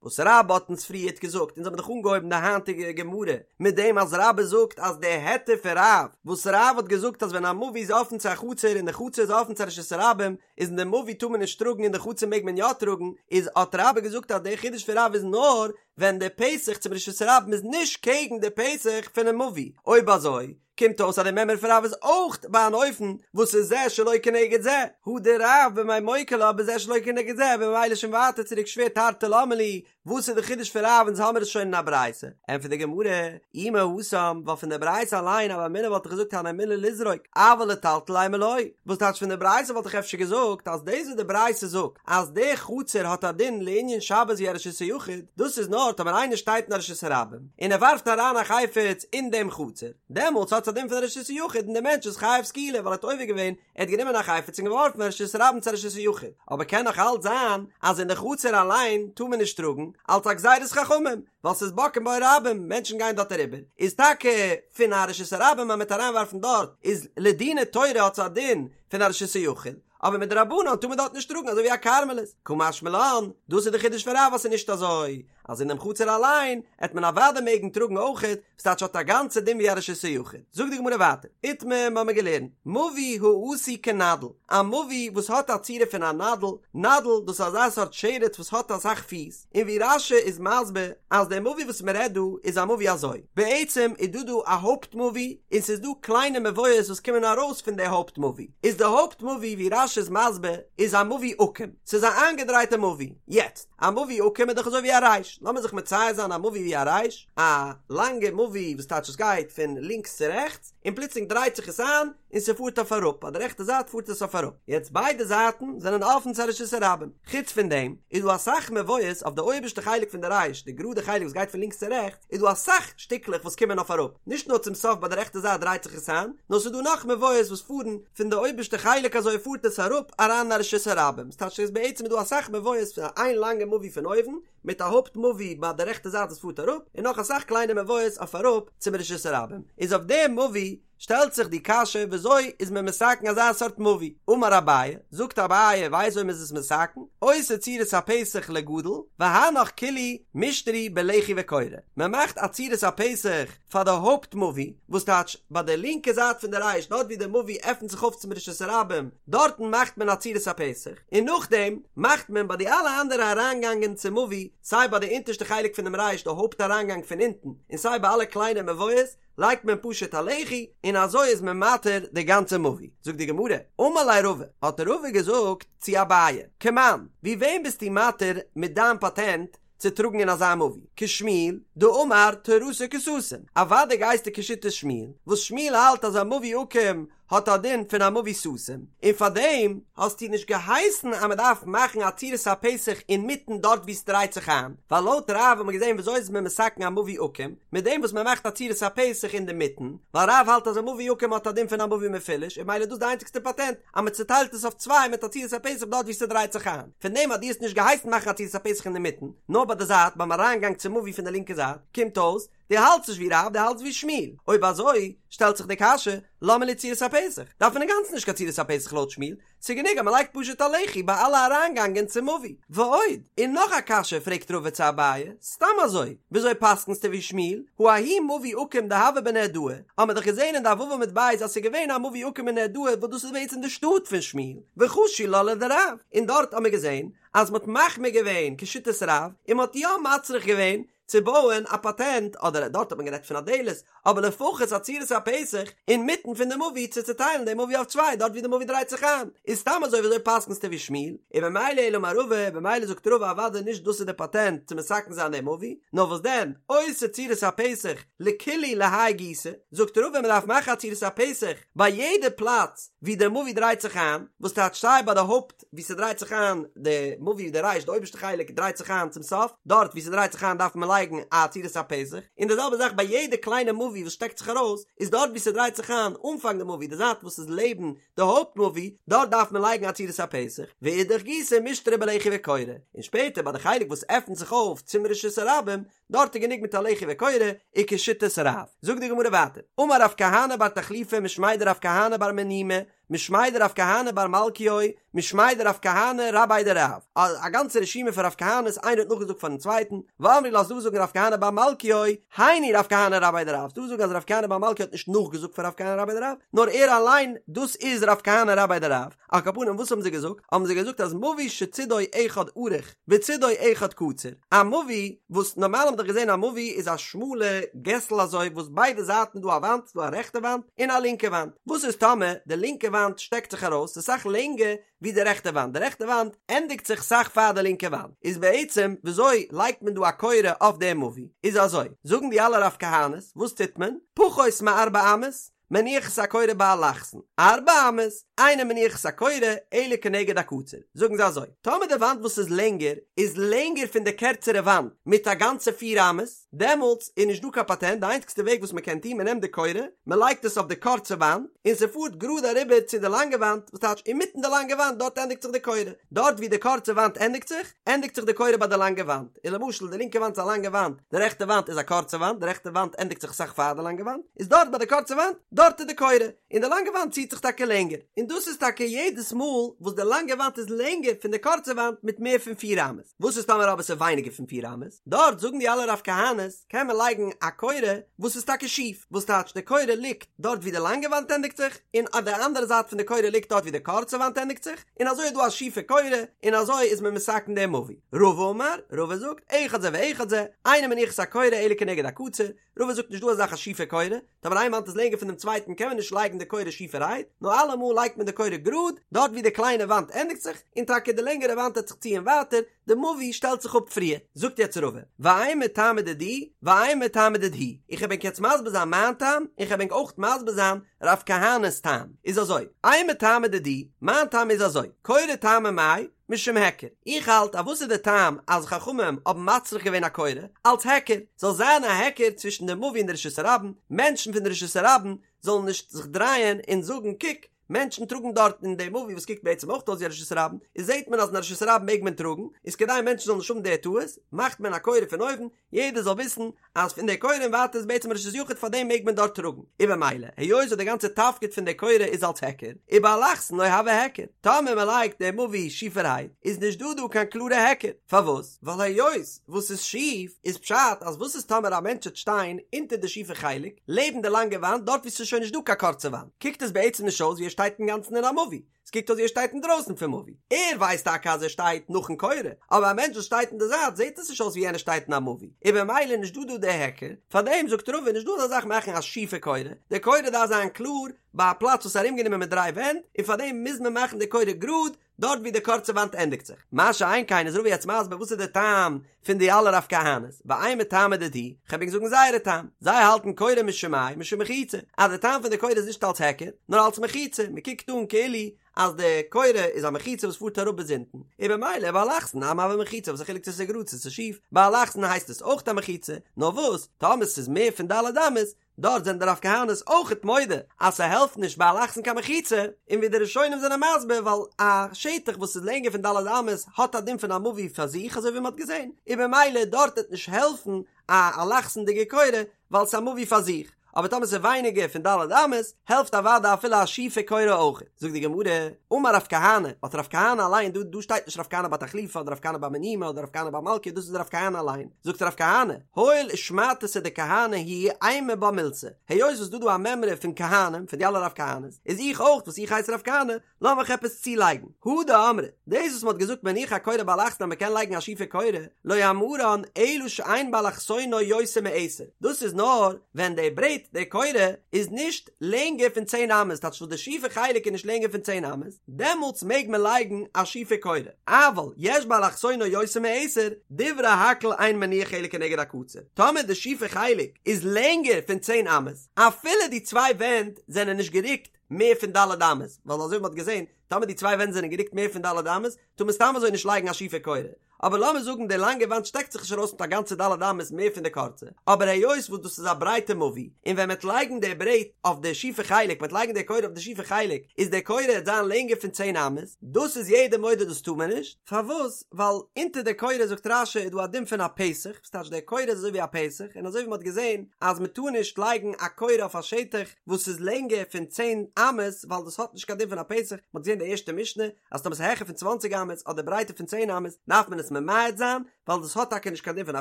וואס רבה האט אונז פריערט געזאגט, אונז האבן דאך אנגעהויבן די היינטיגע גמרא מיט דעם אז רבה זאגט אז די היתר פון רב, וואס רב האט געזאגט אז ווען א מבוי איז אפן צו א חצר און די חצר איז אפן צו א רשות הרבים, איז אין די מבוי טאר מען נישט טראגן אין די חצר מעג מען יא טראגן, איז האט רבה געזאגט אז די חידוש פון רב איז נאר ווען די פתח צום רשות הרבים איז נישט קעגן די פתח פונעם מבוי, אויב אזוי קומט אויס אז די מימרא פון רב איז אויך ביי אן אופן וואס איז זה שלא כנגד זה, הא דרב במאי מוקי לה בזה שלא כנגד זה, במילא שוין ווייטער צוריק שווער תרתי למה לי, וואס איז די חידוש פון רב אונז האמיר עס שוין אין א ברייתא, ענטפערט די גמרא, אי מהתם, ווייל פון די ברייתא אליין הוה אמינא וואלט איך געזאגט הני מילי לזרוק, אבל לטלטל אימא לא, וואס טייטש פון די ברייתא וואלט איך אפשר געזאגט אז דאס וואס די ברייתא זאגט אז די חצר האט א דין לענין שבת ווי א רשות היחיד, דאס איז נאר טאמער איינער שטייט אין א רשות הרבים און ער ווארפט אריין א חפץ אין דעם חצר, דעמאלטס האט עס א דין פון א רשות היחיד און דער מענטש איז חייב סקילה ווייל ער האט עובר געווען, ער האט גענומען א חפץ און געווארפן פון רשות הרבים צו א רשות היחיד, אבער קען נאך אלץ זיין אז אין די חצר אליין טאר מען נישט טראגן, אלץ א גזירת חכמים, ווייל ס'איז בוקעין בה רבים, מענטשן גייען דארט אריבער, איז טאקע פון א רשות הרבים אז מ'וועט אריינווארפן דארט, איז לדיני תורה האט עס א דין פון א רשות היחיד, אבער מדרבנן טאר מען דארט נישט טראגן אזוי ווי א כרמלית, קא משמע לן, דאס איז די חידוש פון רב אז ס'איז נישט אזוי. אז אינעם חצר אליין עט מען אוודאי מעגן טראגן אויכעט, ס'טייטש האט א גאנצע דין ווי א רשות היחיד. זאגט די גמרא ווייטער, איתמר מ'האמיר געלערנט, מבוי העשוי כנדל, א מבוי וואס האט א צורה פון א נדל, נדל דאס איז אזא סארט שרץ וואס האט אסאך פיס, און ווי רש"י איז מסביר אז דער מבוי וואס מ'רעדט דא איז א מבוי אזוי, בעצם איז דא דא א הויפט מבוי און ס'איז דא קליינע מבואות וואס קומען ארויס פון די הויפט מבוי, איז די הויפט מבוי ווי רש"י איז מסביר איז א מבוי עקום, ס'איז א איינגעדרייטע מבוי, יעצט, א מבוי עקום איז דאך אזוי ווי א ריש, לאמיר זיך מצייר זיין א מבוי ווי א ריש, א לאנגע מבוי וואס טייטש עס גייט פון לינקס צו רעכטס, און פלוצלינג דרייט זיך עס איין און ס'פארט אויף אראפ, ביי די רעכטע זייט פארט עס אויף אראפ, יעצט ביידע זייטן זענען אפן צו א רשות הרבים, חוץ פון דעם איז דא אסאך מבואות אויף די אויבערשטע חלק פון די ריש, די גראדע חלק וואס גייט פון לינקס צו רעכטס, איז דא אסאך שטיקלעך וואס קומען אויף אראפ, נישט נאר צום סוף ביי די רעכטע זייט דרייט זיך עס איין, נאר ס'איז דא נאך מבואות וואס פארן פון די אויבערשטע חלק אזוי פארט עס אראפ אריין אין א רשות הרבים, ס'טייטש אז בעצם איז דא אסאך מבואות פון איין לאנגע מבוי פון אויבן, מיט א הויפט מבוי ביי די רעכטע זייט וואס פארט אראפ, און נאך אסאך קליינע מבואות אויף אראפ צום רשות הרבים, איז אויף דעם מבוי שטעלט זיך די קשיא וויאזוי איז מען מתקן אזא סארט מבוי, אמר אביי, זאגט אביי ווייסט וויאזוי מען איז עס מתקן, עושה צורת הפתח לגדול, והנך כולהו מישתרי בלחי וקורה, מען מאכט א צורת הפתח פאר די הויפט מבוי, וואס טייטש ביי די לינקע זייט פון די ריש דארט ווי די מבוי עפנט זיך אויף צום רשות הרבים, דארטן מאכט מען א צורת הפתח, און נאכדעם מאכט מען ביי די אלע אנדערע אריינגאנגען צום מבוי, סיי ביי די אונטערשטע חלק פונעם ריש די הויפט אריינגאנג פון אונטן, און סיי ביי אלע קליינע מבואות, לייגט מען פשוט א לחי, און אזוי איז מען מתיר די גאנצע מבוי. זאגט די גמרא, אמר ליה רבא, האט רבא געזאגט צו אביי, כמאן, ווי וועם ביסטו מתיר מיט דיין פאטענט צו טראגן אין אזא מבוי? כשמואל, דאמר תורתו כסתום, אוודאי גייסטו כשיטת שמואל, וואס שמואל האלט אז א מבוי עקום האט א דין פון א מבוי סתום, און פאר דעם האסטו נישט געהייסן אז מען דארף מאכן א צורת הפתח אינמיטן דארט וואו ס'דרייט זיך איין, ווייל לויט רב האט מען געזען וויאזוי איז מען מתקן א מבוי עקום, מיט דעם וואס מען מאכט א צורת הפתח אינדערמיטן, ווייל רב האלט אז א מבוי עקום האט א דין פון א מבוי מפולש, און ממילא איז דאס די איינציגסטע פאטענט אז מען צוטיילט עס אויף צוויי מיט א צורת הפתח דארט וואו ס'דרייט זיך איין, פון דעם אז דו האסט נישט געהייסן מאכן א צורת הפתח אינדערמיטן, נאר ביי די זייט ביים אריינגאנג צום מבוי פון די לינקע זייט, קומט אויס, דו האלטסט נישט ווי רב, דו האלטסט ווי שמואל. אויב אזוי, שטעלט זיך די קשיא, למה לי צורת הפתח? דארף מען אינגאנצן נישט קיין צורת הפתח לויט שמואל, ס'איז גענוג אז מ'לייגט פשוט א לחי ביי אלע אריינגאנגען צום מבוי. ועוד, און נאך א קשיא פרעגט רבא צו אביי, סתם אזוי, וויאזוי פסק'נסטו ווי שמואל? הא ההוא מבוי עקום דהוה בנהרדעא, האמער דאך געזען אין דף ו' עמוד ב' אז ס'איז געווען א מבוי עקום אין נהרדעא וואס דאס איז בעצם די שטאט פון שמואל, וחשו לה לדרב, און דארט האמער געזען אז מ'האט מחמיר געווען כשיטת רב, און מ'האט יא מצריך געווען צו בויען א פאטענט, אדער דארט האט מען גערעדט פון א דלת, אבער לפחות א צורת הפתח אינמיטן פון די מבוי צו צוטיילן די מבוי אויף צוויי דארט ווי די מבוי דרייט זיך איין, איז סתם אזוי וויאזוי פסק'נסטו ווי שמואל? און במילא אלא אמר רבא, במילא זאגט רבא אוודאי נישט דאס איז די פאטענט צו מתקן זיין די מבוי, נאר וואס דען, עושה צורת הפתח לכולהו להאי גיסא, זאגט רבא מען דארף מאכן א צורת הפתח ביי יעדע פלאץ ווי די מבוי דרייט זיך איין, וואס טייטש סיי ביי די הויפט ווי ס'דרייט זיך איין די מבוי די ריש די אויבערשטע חלק דרייט זיך איין צום סוף, דארט ווי ס'דרייט זיך איין דארף מען לייגן א צורת הפתח, און די זעלבע זאך ביי יעדע קליינע מבוי וואס שטעקט זיך ארויס, איז דארט ווי ס'דרייט זיך איין אנפאנג די מבוי די זייט וואס איז לעבן די הויפט מבוי, דארט דארף מען לייגן א צורת הפתח, ואידך גיסא מישתרי בלחי וקורה, און שפעטער ביי די חלק וואס עפנט זיך אויף צום רשות הרבים, דארט איז גענוג מיט א לחי וקורה, וכשיטת רב. זאגט די גמרא ווייטער, אמר רב כהנא בר תחליפא משמיה דרב כהנא בר מניומי, משמיה דרב כהנא בר מלכיו, משמיה דרב כהנא רביה דרב, א גאנצע רשימה פון רב כהנא'ס איינער האט נאכגעזאגט פארן צווייטן, ואמרי לה ס'דא זאגן רב כהנא בר מלכיו, היינו רב כהנא רביה דרב, ס'דא זאגן אז רב כהנא בר מלכיו האט נישט נאכגעזאגט פון רב כהנא רביה דרב, נאר ער אליין, דאס איז רב כהנא רביה דרב, על כל פנים וואס האבן זיי געזאגט? האבן זיי געזאגט אז מבוי שצידו אחד ארוך וצידו אחד קצר, א מבוי וואס נארמאל האט מען דאך געזען א מבוי איז א שמאלע געסל אזוי וואס ביידע זייטן איז דא א וואנט, ס'דא א רעכטע וואנט און א לינקע וואנט, וואס איז טאמער די לינקע וואנט שטעקט זיך ארויס ס'איז סאך לענגער ווי די רעכטע וואנט, די רעכטע וואנט ענדיגט זיך סאך פאר די לינקע וואנט, איז בעצם וויאזוי לייגט מען דא א קורה אויף די מבוי? איז אזוי, זאגן די אלע רב כהנא'ס, וואס טוט מען? פחות מארבע אמות, מניח את הקורה באלכסון, ארבע אמות, אינו מניח את הקורה, אלא כנגד הקצר. זאגן זיי אזוי, טאמער די וואנט וואס איז לענגער, איז לענגער פון די קערצערע וואנט מיט א גאנצע פיר אמות, דעמאלטס איז נישט דא קיין פאטענט, די איינציגסטע וועג וואס מען קען טון, מען נעמט די קורה, מען לייגט עס אויף די קורצע וואנט, און ס'פארט גראד אריבער צו די לאנגע וואנט, וואס טייטש אינמיטן די לאנגע וואנט, דארט ענדיגט זיך די קורה. דארט ווי די קורצע וואנט ענדיגט זיך, ענדיגט זיך די קורה ביי די לאנגע וואנט. און למשל די לינקע וואנט איז א לאנגע וואנט, די רעכטע וואנט איז א קורצע וואנט, די רעכטע וואנט ענדיגט זיך אסאך פאר די לאנגע וואנט, איז דארט ביי די קורצע וואנט, דארט איז די קורה, און די לאנגע וואנט ציט זיך טאקע לענגער, און דאס איז טאקע יעדעס מאל וואס די לאנגע וואנט איז לענגער פון די קורצע וואנט מיט מער פון פיר אמות, וואס איז טאמער אבער ס'איז ווייניגער פון פיר אמות, דארט זאגן די אלע רב כהנא'ס קען מען לייגן א קורה וואס איז טאקע שיף, וואס טייטש די קורה ליגט דארט ווי די לאנגע וואנט ענדיגט זיך, און אויף די אנדערע זייט פון די קורה ליגט דארט ווי די קורצע וואנט ענדיגט זיך, און אזוי איז דא א שיפע קורה, און אזוי איז מען מתקן דעם מבוי. רבא אמר, רבא זאגט, אחד זה ואחד זה, אינו מניח את הקורה אלא כנגד הקצר, רבא זאגט נישט דא אזא זאך א שיפע קורה, טאמער איין וואנט איז לענגער פון דעם צווייטן קען מען נישט לייגן די קורה שיפערהייט, נאר אלעמאל לייגט מען די קורה גראד, דארט ווי די קליינע וואנט ענדיגט זיך, און טאקע די לענגערע וואנט וועט זיך ציען ווייטער, די מבוי שטעלט זיך אפ פריער. זאגט יעצט רבא, ואימא טעמא דידי, ואימא טעמא דידהו, איך וועל ענק יעצט מסביר זיין מיין טעם, און כ'וועל ענק אויך מסביר זיין רב כהנא'ס טעם, איז אזוי, אימא טעמא דידי, מיין טעם איז אזוי, קורה טעמא מאי, משום היכר, איך האלט אז וואס איז די טעם אז חכמים האבן מצריך געווען א קורה, אלץ היכר, זאל זיין א היכר צווישן די מבוי און די רשות הרבים, מענטשן פון די רשות הרבים זאלן נישט זיך דרייען און זאגן קוק, מענטשן טראגן דארט אין די מבוי וואס קוקט בעצם אויך אויס ווי א רשות הרבים, איז זעט מען אז אין א רשות הרבים מעג מען טראגן, איז כדי מענטשן זאלן נישט האבן די טעות, מאכט מען א קורה פון אויבן, יעדער זאל וויסן אז פון די קורה און ווייטער איז בעצם רשות יחיד פאר דעם מעג מען דארט טראגן, און במילא היות וואס די גאנצע תפקיד פון די קורה איז אלס היכר, ובאלכסון לא הוי היכר, טאמער מען לייגט די מבוי שיפערהייט איז נישט דא דא קיין קלארע היכר, פארוואס? ווייל היות וואס איז שיף איז פשט אז וואס איז טאמער א מענטש וועט שטיין אונטער די שיפע חלק לעבן די לאנגע וואנט דארט ווי ס'איז שוין נישט דא קיין קורצע וואנט קוקט עס בעצם נישט אויס ווי ער שטייט אינגאנצן אין א מבוי, עס קוקט אויס ווי ער שטייט אינדרויסן פון מבוי. ער ווייסט טאקע אז ער שטייט נאכן קורה, אבער א מענטש וואס שטייט אין די זייט זעט עס נישט אויס ווי יענער שטייט אין א מבוי, און במילא איז נישט דא דא די היכר, פארדעם זאגט רבא נישט דא אזא זאך מאכן א שיפע קורה, די קורה דארף זיין קלאר ביי א פלאץ וואס איז ארומגענומען מיט דריי ווענט, און פארדעם מוז מען מאכן די קורה גראד דארט ווי די קורצע וואנט ענדיגט זיך. מה שאין כן איז רבא יעצט מסביר וואס איז די טעם פון די אלע רב כהנא'ס, ואימא טעמא דידהו, כ'וועל ענק זאגן זייערע טעם, זיי האלטן קורה משום מאי משום מחיצה, אז די טעם פון די קורה איז נישט אלס היכר, נאר אלס מחיצה, מען קוקט אן כאילו אז די קורה איז א מחיצה וואס פארט אראפ ביז אונטן, און במילא באלכסון נמי הוי מחיצה, וואס א חילוק צו ס'איז גראד צו ס'איז שיף, באלכסון הייסט עס אויך א מחיצה, נאר וואס, טאמער ס'איז מער פון ד' אמות, דארט זענען די רב כהנא'ס אויכעט מודה אז ס'העלפט נישט באלכסון קיין מחיצה, און ווי די ראשונים זענען מסביר ווייל א שטח וואס איז לענגער פון ד' אמות האט א דין פון א מבוי פאר זיך אזוי ווי מ'האט געזען, און במילא דארט וועט נישט העלפן א אלכסונ'דיגע קורה ווייל ס'איז א מבוי פאר זיך, אבער טאמער ס'איז ווייניגער פון ד' אמות העלפט אוודאי אפילו א שיפע קורה אויכעט. זאגט די גמרא, אמר רב כהנא, האט רב כהנא אליין, דא דא שטייט נישט רב כהנא בר תחליפא אדער רב כהנא בר מניומי אדער רב כהנא בר מלכא דאס איז רב כהנא אליין, זאגט רב כהנא, הואיל ושמעתתא דכהני היא אימא בה מילתא, היות וואס דא דא א מימרא פון כהנים, פון די אלע רב כהנא'ס, איז איך אויך וואס איך הייס רב כהנא, לאמיך עפעס צולייגן, הא דאמרי, דאס וואס מ'האט געזאגט מניח הקורה באלכסון אז מ'קען לייגן א שיפע קורה, לא אמרן אלא שאין באלכסונו יותר מעשר, דאס איז נאר ווען די ברעט, די קורה, איז נישט לענגער פון צען אמות, טייטש וואס די שיפע חלק איז נישט לענגער פון צען אמות, דעמאלטס מעג מען לייגן א שיפע קורה, אבל יש באלכסונו יותר מעשר, דברי הכל אין מניח אלא כנגד הקצר, טאמער די שיפע חלק איז לענגער פון צען אמות, אפילו די צוויי ווענט זענען נישט גערוקט מער פון ד' אמות, ווייל אזוי ווי מ'האט געזען, טאמער די צוויי ווענט זענען גערוקט מער פון ד' אמות, טאר מען סתם אזוי נישט לייגן א שיפע קורה, אבער לאמיר זאגן די לאנגע וואנט שטעקט זיך נישט ארויס מיט א גאנצע ד' אמות מער פון די קורצע, אבער היות וואס דאס איז א ברייטע מבוי, און ווען מ'עט לייגן די ברעט אויף די שיפע חלק, מ'עט לייגן די קורה אויף די שיפע חלק, איז די קורה עט זיין לענגער פון צען אמות, דאס איז יעדער מודה דאס טאר מען נישט, פארוואס? ווייל אונטער די קורה זאגט רש"י איז דא א דין פון א פתח, וואס טייטש די קורה איז אזוי ווי א פתח, און אזוי ווי מ'האט געזען אז מ'טאר נישט לייגן א קורה אויף א שטח וואס איז לענגער פון צען אמות, ווייל דאס האט נישט קיין דין פון א פתח, מ'האט געזען די ערשטע משנה, אז טאמער ס'איז העכער פון צוואנציג אמות אדער ברייטער פון צען אמות דארף מען עס ממעט זיין, ווייל דאס האט טאקע נישט קיין דין פון א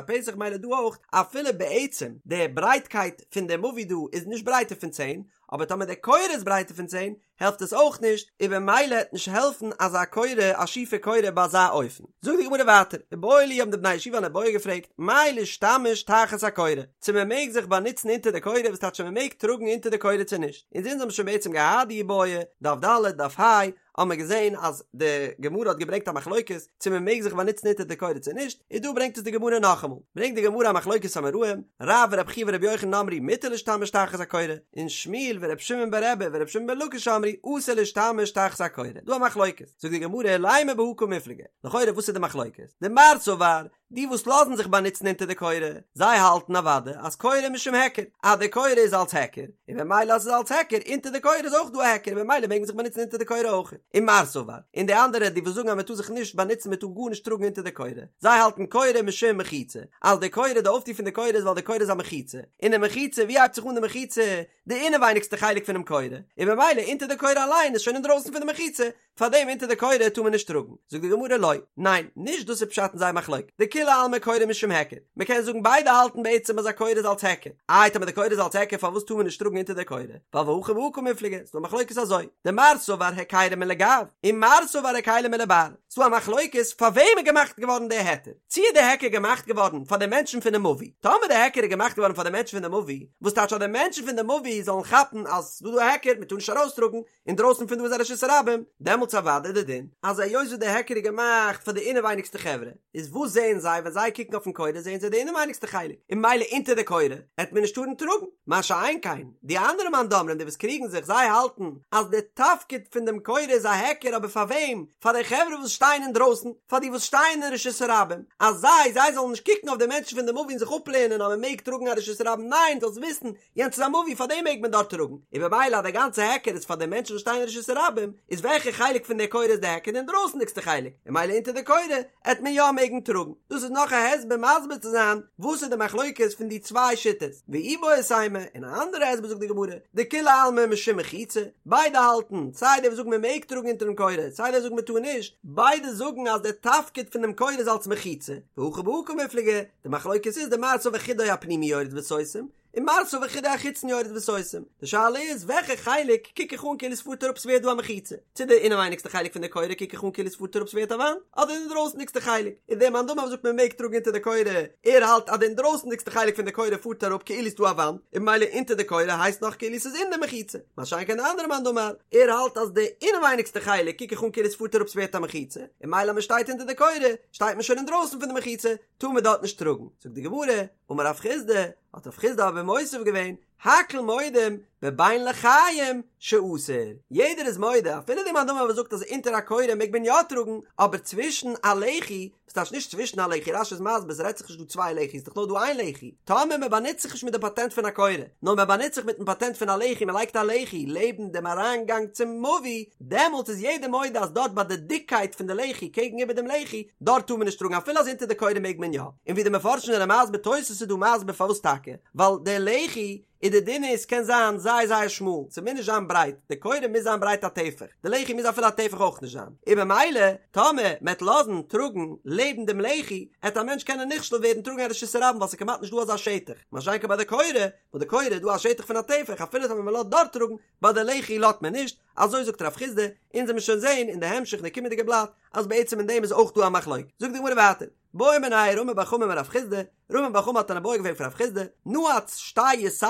פתח מילא דא אויך, אפילו בעצם די ברייטקייט פון די מבוי דא איז נישט ברייטער פון צען, אבער טאמער די קורה איז ברייטער פון צען העלפט עס אויך נישט, און במילא העט נישט העלפן אזא קורה א שיפע קורה ביי אזא אופן. זאגט די גמרא ווייטער, איבעיא להו האבן די בני ישיבה אן איבעיא געפרעגט, מהו להשתמש תחת הקורה, צו מען מעג זיך באנוצן אונטער די קורה, וואס טייטש צו מען מעג טראגן אונטער די קורה צו נישט, אונז אונז האבן שוין בעצם געהאט די איבעיא, דף ד', דף ה', האבן מיר געזען אז די גמרא האט געברענגט א מחלוקת צו מען מעג זיך באנוצן אונטער די קורה צו נישט, און דא ברענגט עס די גמרא נאכאמאל, ברענגט די גמרא א מחלוקת אמוראים, רב ורבי חייא ורבי יוחנן אמרו מותר להשתמש תחת הקורה, און שמואל ורבי שמעון ברבי ורבי שמעון בן לקיש אמרו אסור להשתמש תחת הקורה, דא א מחלוקת, זאגט די גמרא לימא בהא קמיפלגי, לכאורה וואס איז די מחלוקת? דמר סבר. די וואס לאזן זיך באנוצן אונטער די קורה, זיי האלטן אוודאי אז קורה משום היכר, אז די קורה איז אלס היכר, און במילא אז ס'איז אלס היכר, אונטער די קורה איז אויך דא א היכר, און במילא מעג מען זיך באנוצן אונטער די קורה אויך. ומר סבר, און די אנדערע די וואס זאגן אז מען טאר זיך נישט באנוצן מען טאר גארנישט טראגן אונטער די קורה, זיי האלטן קורה משום מחיצה, אז די קורה די אויפטו פון די קורה איז ווייל די קורה איז א מחיצה, און די מחיצה ווי הייבט זיך אן די מחיצה? די אינעווייניגסטע חלק פונעם קורה, און במילא אונטער די קורה אליין איז שוין אינדרויסן פון די מחיצה, פארדעם אונטער די קורה טאר מען נישט טראגן. זאגט די גמרא לא, ניין, נישט דאס איז פשט אין זייער מחלוקת, דכולי עלמא קורה משום היכר, מען קען זאגן ביידע האלטן בעצם אז א קורה איז אלס היכר, איי טאמער די קורה איז אלס היכר פארוואס טאר מען נישט טראגן אונטער די קורה, ווייל והכא בהא קמיפלגי, ס'דא א מחלוקת אזוי, דמר סבר היכירא מליגו, ומר סבר היכירא מלבר, ס'דא א מחלוקת פאר וועם איז געמאכט געווארן די היתר, צו איז די היכר געמאכט געווארן פאר די מענטשן פונעם מבוי, טאמער די היכר איז געמאכט געווארן פאר די מענטשן פון די מבוי, וואס טייטש אז די מענטשן פון די מבוי זאלן כאפן אז ס'דא דא א היכר מען טאר נישט ארויסטראגן, אינדרויסן פון דא איז א רשות הרבים, דעמאלטס אוודאי די דין אז היות וואס די היכר איז געמאכט פאר די אינעווייניגסטע חברה, איז וואס זעען זיי ווען זיי קוקן אויפן קורה זעען זיי די אינעווייניגסטע חלק, און ממילא אונטער די קורה העט מען נישט טארן טראגן, מה שאין כן די אנדערע מאן דאמרים די וואס קריגן זיך זיי האלטן אז די תפקיד פון דעם קורה איז א היכר אבער פאר וועם? פאר די חברה וואס שטייען אינדרויסן, פאר די וואס שטייען אין רשות הרבים, אז זיי זיי זאלן נישט קוקן אויף די מענטשן פון די מבוי און זיך אפלערנען אז מען מעג טראגן א רשות הרבים, ניין זאלסט וויסן יענץ איז א מבוי פאר דעם מעג מען דארט טראגן, און במילא אז די גאנצע היכר איז פאר די מענטשן וואס שטייען אין רשות הרבים, איז וועלכע חלק פון די קורה איז די היכר? די אינדרויסנדיגסטע חלק, און ממילא אונטער די קורה עט מען יא מעגן טראגן. דאס איז נאך א הסבר מסביר צו זיין וואס איז די מחלוקת פון די צוויי שיטות. ואיבעית אימא, און א אנדערע הסבר זאגט די גמרא, דכולי עלמא משום מחיצה, ביידע האלטן, סיי די וואס זאגן מען מעג טראגן אונטערן קורה, סיי די וואס זאגן מען טאר נישט, ביידע זאגן אז די תפקיד פון דעם קורה איז אלס מחיצה, והכא בהא קמיפלגי, די מחלוקת איז דמר סבר חודו הפנימי יורד וסותם, ומר סבר חודו החיצון יורד וסותם. די שאלה איז וועלכע חלק קוק איך אן כאילו ס'פארט אראפ ס'ווערט דא א מחיצה, צו די אינעווייניגסטע חלק פון די קורה קוק איך אן כאילו ס'פארט אראפ ס'ווערט א וואנט, אדער די אינדרויסנדיגסטע חלק, און דער מאן דאמר וואס זאגט מ'מעג טראגן אונטער די קורה, ער האלט אז די אינדרויסנדיגסטע חלק פון די קורה פארט אראפ כאילו ס'דא א וואנט, און ממילא אונטער די קורה הייסט נאך כאילו ס'איז אין די מחיצה, מה שאין כן די אנדערע מאן דאמר, ער האלט אז די אינעווייניגסטע חלק קוק איך אן כאילו ס'פארט אראפ ס'ווערט א מחיצה, און ממילא אז מ'שטייט אונטער די קורה שטייט מען שוין אינדרויסן פון די מחיצה, טאר מען דארט נישט טראגן. זאגט די גמרא, אמר רב חסדא, האט רב חסדא אבער מוסיף געווען, הכל מודים בבין לחיים שאסור, יעדער איז מודה, אפילו די מאן דאמר וואס זאגט אז אונטער א קורה מעג מען יא טראגן, אבער צווישן א לחי, וואס טייטש נישט צווישן א לחי, רש"י איז מסביר ס'רעדט זיך נישט דא צוויי לחי'ס, דאך נאר דא איין לחי, טאמער מען באנוצט זיך נישט מיט די פאטענט פון א קורה, נאר מען באנוצט זיך מיטן פאטענט פון א לחי, מען לייגט א לחי לעבן דעם אריינגאנג צום מבוי, דעמאלטס איז יעדער מודה אז דארט ביי די דיקקייט פון די לחי קעגן איבער דעם לחי, דארט טאר מען נישט טראגן אפילו אז אונטער די קורה מעג מען יא. און ווי די מפרשים זענען מסביר תוס' איז דא מסביר פארוואס טאקע, ווייל די לחי איז די דין איז קען זיין זייער זייער שמאל, ס'מוז נישט זיין ברייט, די קורה מוז זיין ברייט א טפח, די לחי מוז אפילו א טפח אויך נישט זיין, און במילא טאמער מ'עט לאזן טראגן לעבן דעם לחי, עט א מענטש קענען נכשל ווערן טראגן א רשות הרבים ווייל ס'איז כמעט נישט דא אזא שטח, מה שאין כן ביי די קורה, וואס די קורה איז דא א שטח פון א טפח אפילו טאמער מ'לאזט דארט טראגן, ביי די לחי לאזט מען נישט, אזוי זאגט רב חסדא, אונז עמיר שוין זעהן אין די המשך אין די קומענדיגע בלאט אז בעצם אין דעם איז אויך דא א מחלוקת, זאגט די גמרא ווייטער, בעא מיניה רמי בר חמא מרב חסדא, רמי בר חמא האט אן איבעיא געפרעגט פון רב חסדא, נעץ שתי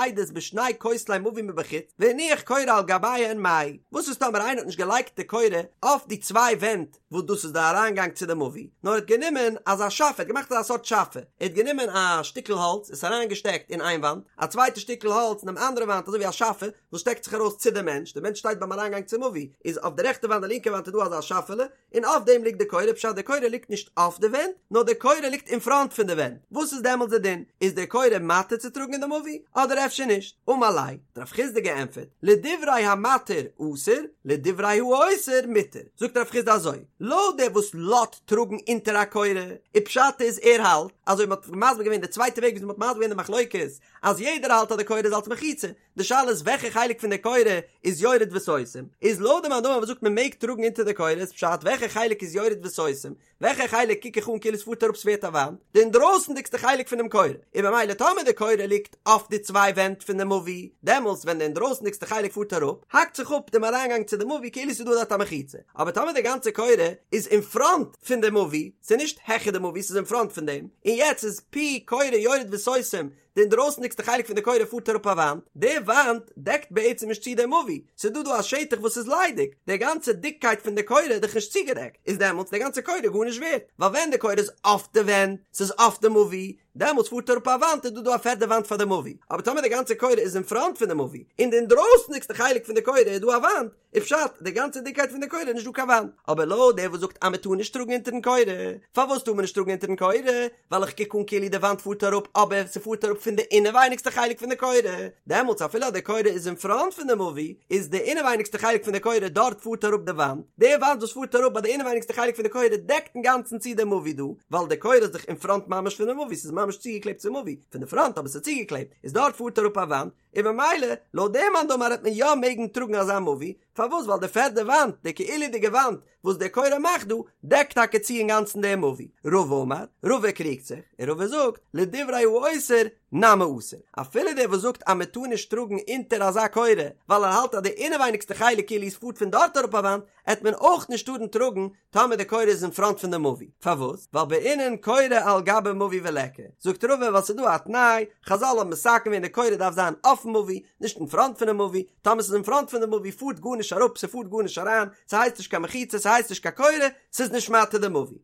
יתדות בשני כותלי מבוי מבחוץ, והניח קורה על גביהן מהו, וואס איז טאמער איינער האט נישט געלייגט די קורה אויף די צוויי ווענט וואס דאס איז די אריינגאנג צו די מבוי, נאר ער האט גענומען אזא שאפע, ער האט געמאכט אזא סארט שאפע, ער האט גענומען א שטיקל האלץ, עס אריינגעשטעקט אין איין וואנט, א צווייטע שטיקל האלץ אין דעם אנדערע וואנט אזוי ווי א שאפע, וואס שטעקט זיך ארויס צו די מענטש, די מענטש שטייט ביים אריינגאנג צום מבוי, איז אויף די רעכטע וואנט די לינקע וואנט איז דא אזא שאפעלע, און אויף דעם ליגט די קורה, פשט די קורה ליגט נישט אויף די ווענט, נאר די קורה ליגט אין פראנט פון די ווענט, וואס איז דעמאלטס די דין? איז די קורה מתיר צו טראגן אין די מבוי, אדער אפשר נישט? אמר ליה, האט רב חסדא געענטפערט, לדברי המתיר אסור, לדברי האוסר מותר, זאגט רב חסדא אזוי, לויט דער וואס לאזט טראגן אונטער א קורה, און פשט איז ער האלט, אזוי מ'האט מסביר געווען די צווייטע וועג ווי מ'האט מסביר געווען די מחלוקת, אז יעדער האלט אז די קורה איז אלס מחיצה, די שאלה איז וועלכע חלק פון די קורה איז יורד וסותם, איז לויט די מאן דאמר וואס זאגט מען מעג טראגן אונטער די קורה איז פשט וועלכע חלק איז יורד וסותם, וועלכע חלק קוק איך אן כאילו עס פארט אראפ ס'ווערט א וואנט, די אינדרויסנדיגסטע חלק פונעם קורה, און במילא טאמער די קורה ליגט אויף די צוויי ווענט פון די מבוי, דעמאלטס ווען די אינדרויסנדיגסטע חלק פארט אראפ, האקט זיך אפ דעם אריינגאנג צו די מבוי כאילו ס'איז דא דארט א מחיצה, אבער טאמער די גאנצע קורה איז אין פראנט פון די מבוי, ס'איז נישט העכער די מבוי ס'איז אין פראנט פון דעם, און יעצט איז פי קורה יורד וסותם, די אינדרויסנדיגסטע חלק פון די קורה פארט אראפ א וואנט, די וואנט דעקט בעצם נישט צו די מבוי, ס'איז דא דא א שטח וואס איז ליידיג, די גאנצע דיקקייט פון די קורה איז דאך נישט צוגעדעקט, איז דעמאלטס די גאנצע קורה גארנישט ווערט, ווייל ווען די קורה איז אויף די ווענט, ס'איז אויף די מבוי. דעמאלטס פארט אראפ א וואנט איז דא דא א פערדע וואנט פאר די מבוי, אבער טאמער די גאנצע קורה איז אין פראנט פון די מבוי, און די אינדרויסנדיגסטע חלק פון די קורה איז דא א וואנט, איז פשט די גאנצע דיקקייט פון די קורה איז נישט דא קיין וואנט. אבער לויט דער וואס זאגט אז מען טאר נישט טראגן אונטערן קורה, פארוואס טאר מען נישט טראגן אונטערן קורה? ווייל איך קוק אן כאילו די וואנט פארט אראפ אבער ס'פארט אראפ פון די אינעווייניגסטע חלק פון די קורה, דעמאלטס אפילו אז די קורה איז אין פראנט פון די מבוי, איז די אינעווייניגסטע חלק פון די קורה דארט פארט אראפ די וואנט, די וואנט וואס פארט אראפ ביי די אינעווייניגסטע חלק פון די קורה דעקט אינגאנצן צו די מבוי דא, ווייל די קורה איז דאך אין פראנט ממש פון די מבוי, ס'איז ממש צוגעקלעבט צום מבוי, פון די פראנט אבער ס'איז צוגעקלעבט, איז דארט פארט אראפ א וואנט, און במילא לויט דעם מאן דאמר העט מען יא מעגן טראגן אזא מבוי, פארוואס ווייל די פערדע וואנט, די כאילו'דיגע וואנט, וואס די קורה מאכט דא, דעקט טאקע צו אינגאנצן דעם מבוי. רבא אמר, רבא קריגט זיך, און רבא זאגט, לדברי האוסר, נמי אסור. אפילו דער וואס זאגט אז מען טאר נישט טראגן אונטער אזא קורה, ווייל ער האלט אז די אינעווייניגסטע חלק כאילו עס פארט פון דארט אראפ א וואנט, עט מען אויך נישט טארן טראגן טאמער די קורה איז אין פראנט פון די מבוי. פארוואס? ווייל בעינן קורה על גבי מבוי וליכא. זאגט רבא ווייל ס'איז דא א תנאי, חזל האבן מתקן געווען די קורה דארף זיין אויפן מבוי, נישט אין פראנט פונעם מבוי, טאמער ס'איז אין פראנט פון די מבוי פארט גארנישט אראפ ס'פארט גארנישט אריין, ס'הייסט נישט קיין מחיצה ס'הייסט נישט קיין קורה, ס'איז נישט מתיר די מבוי.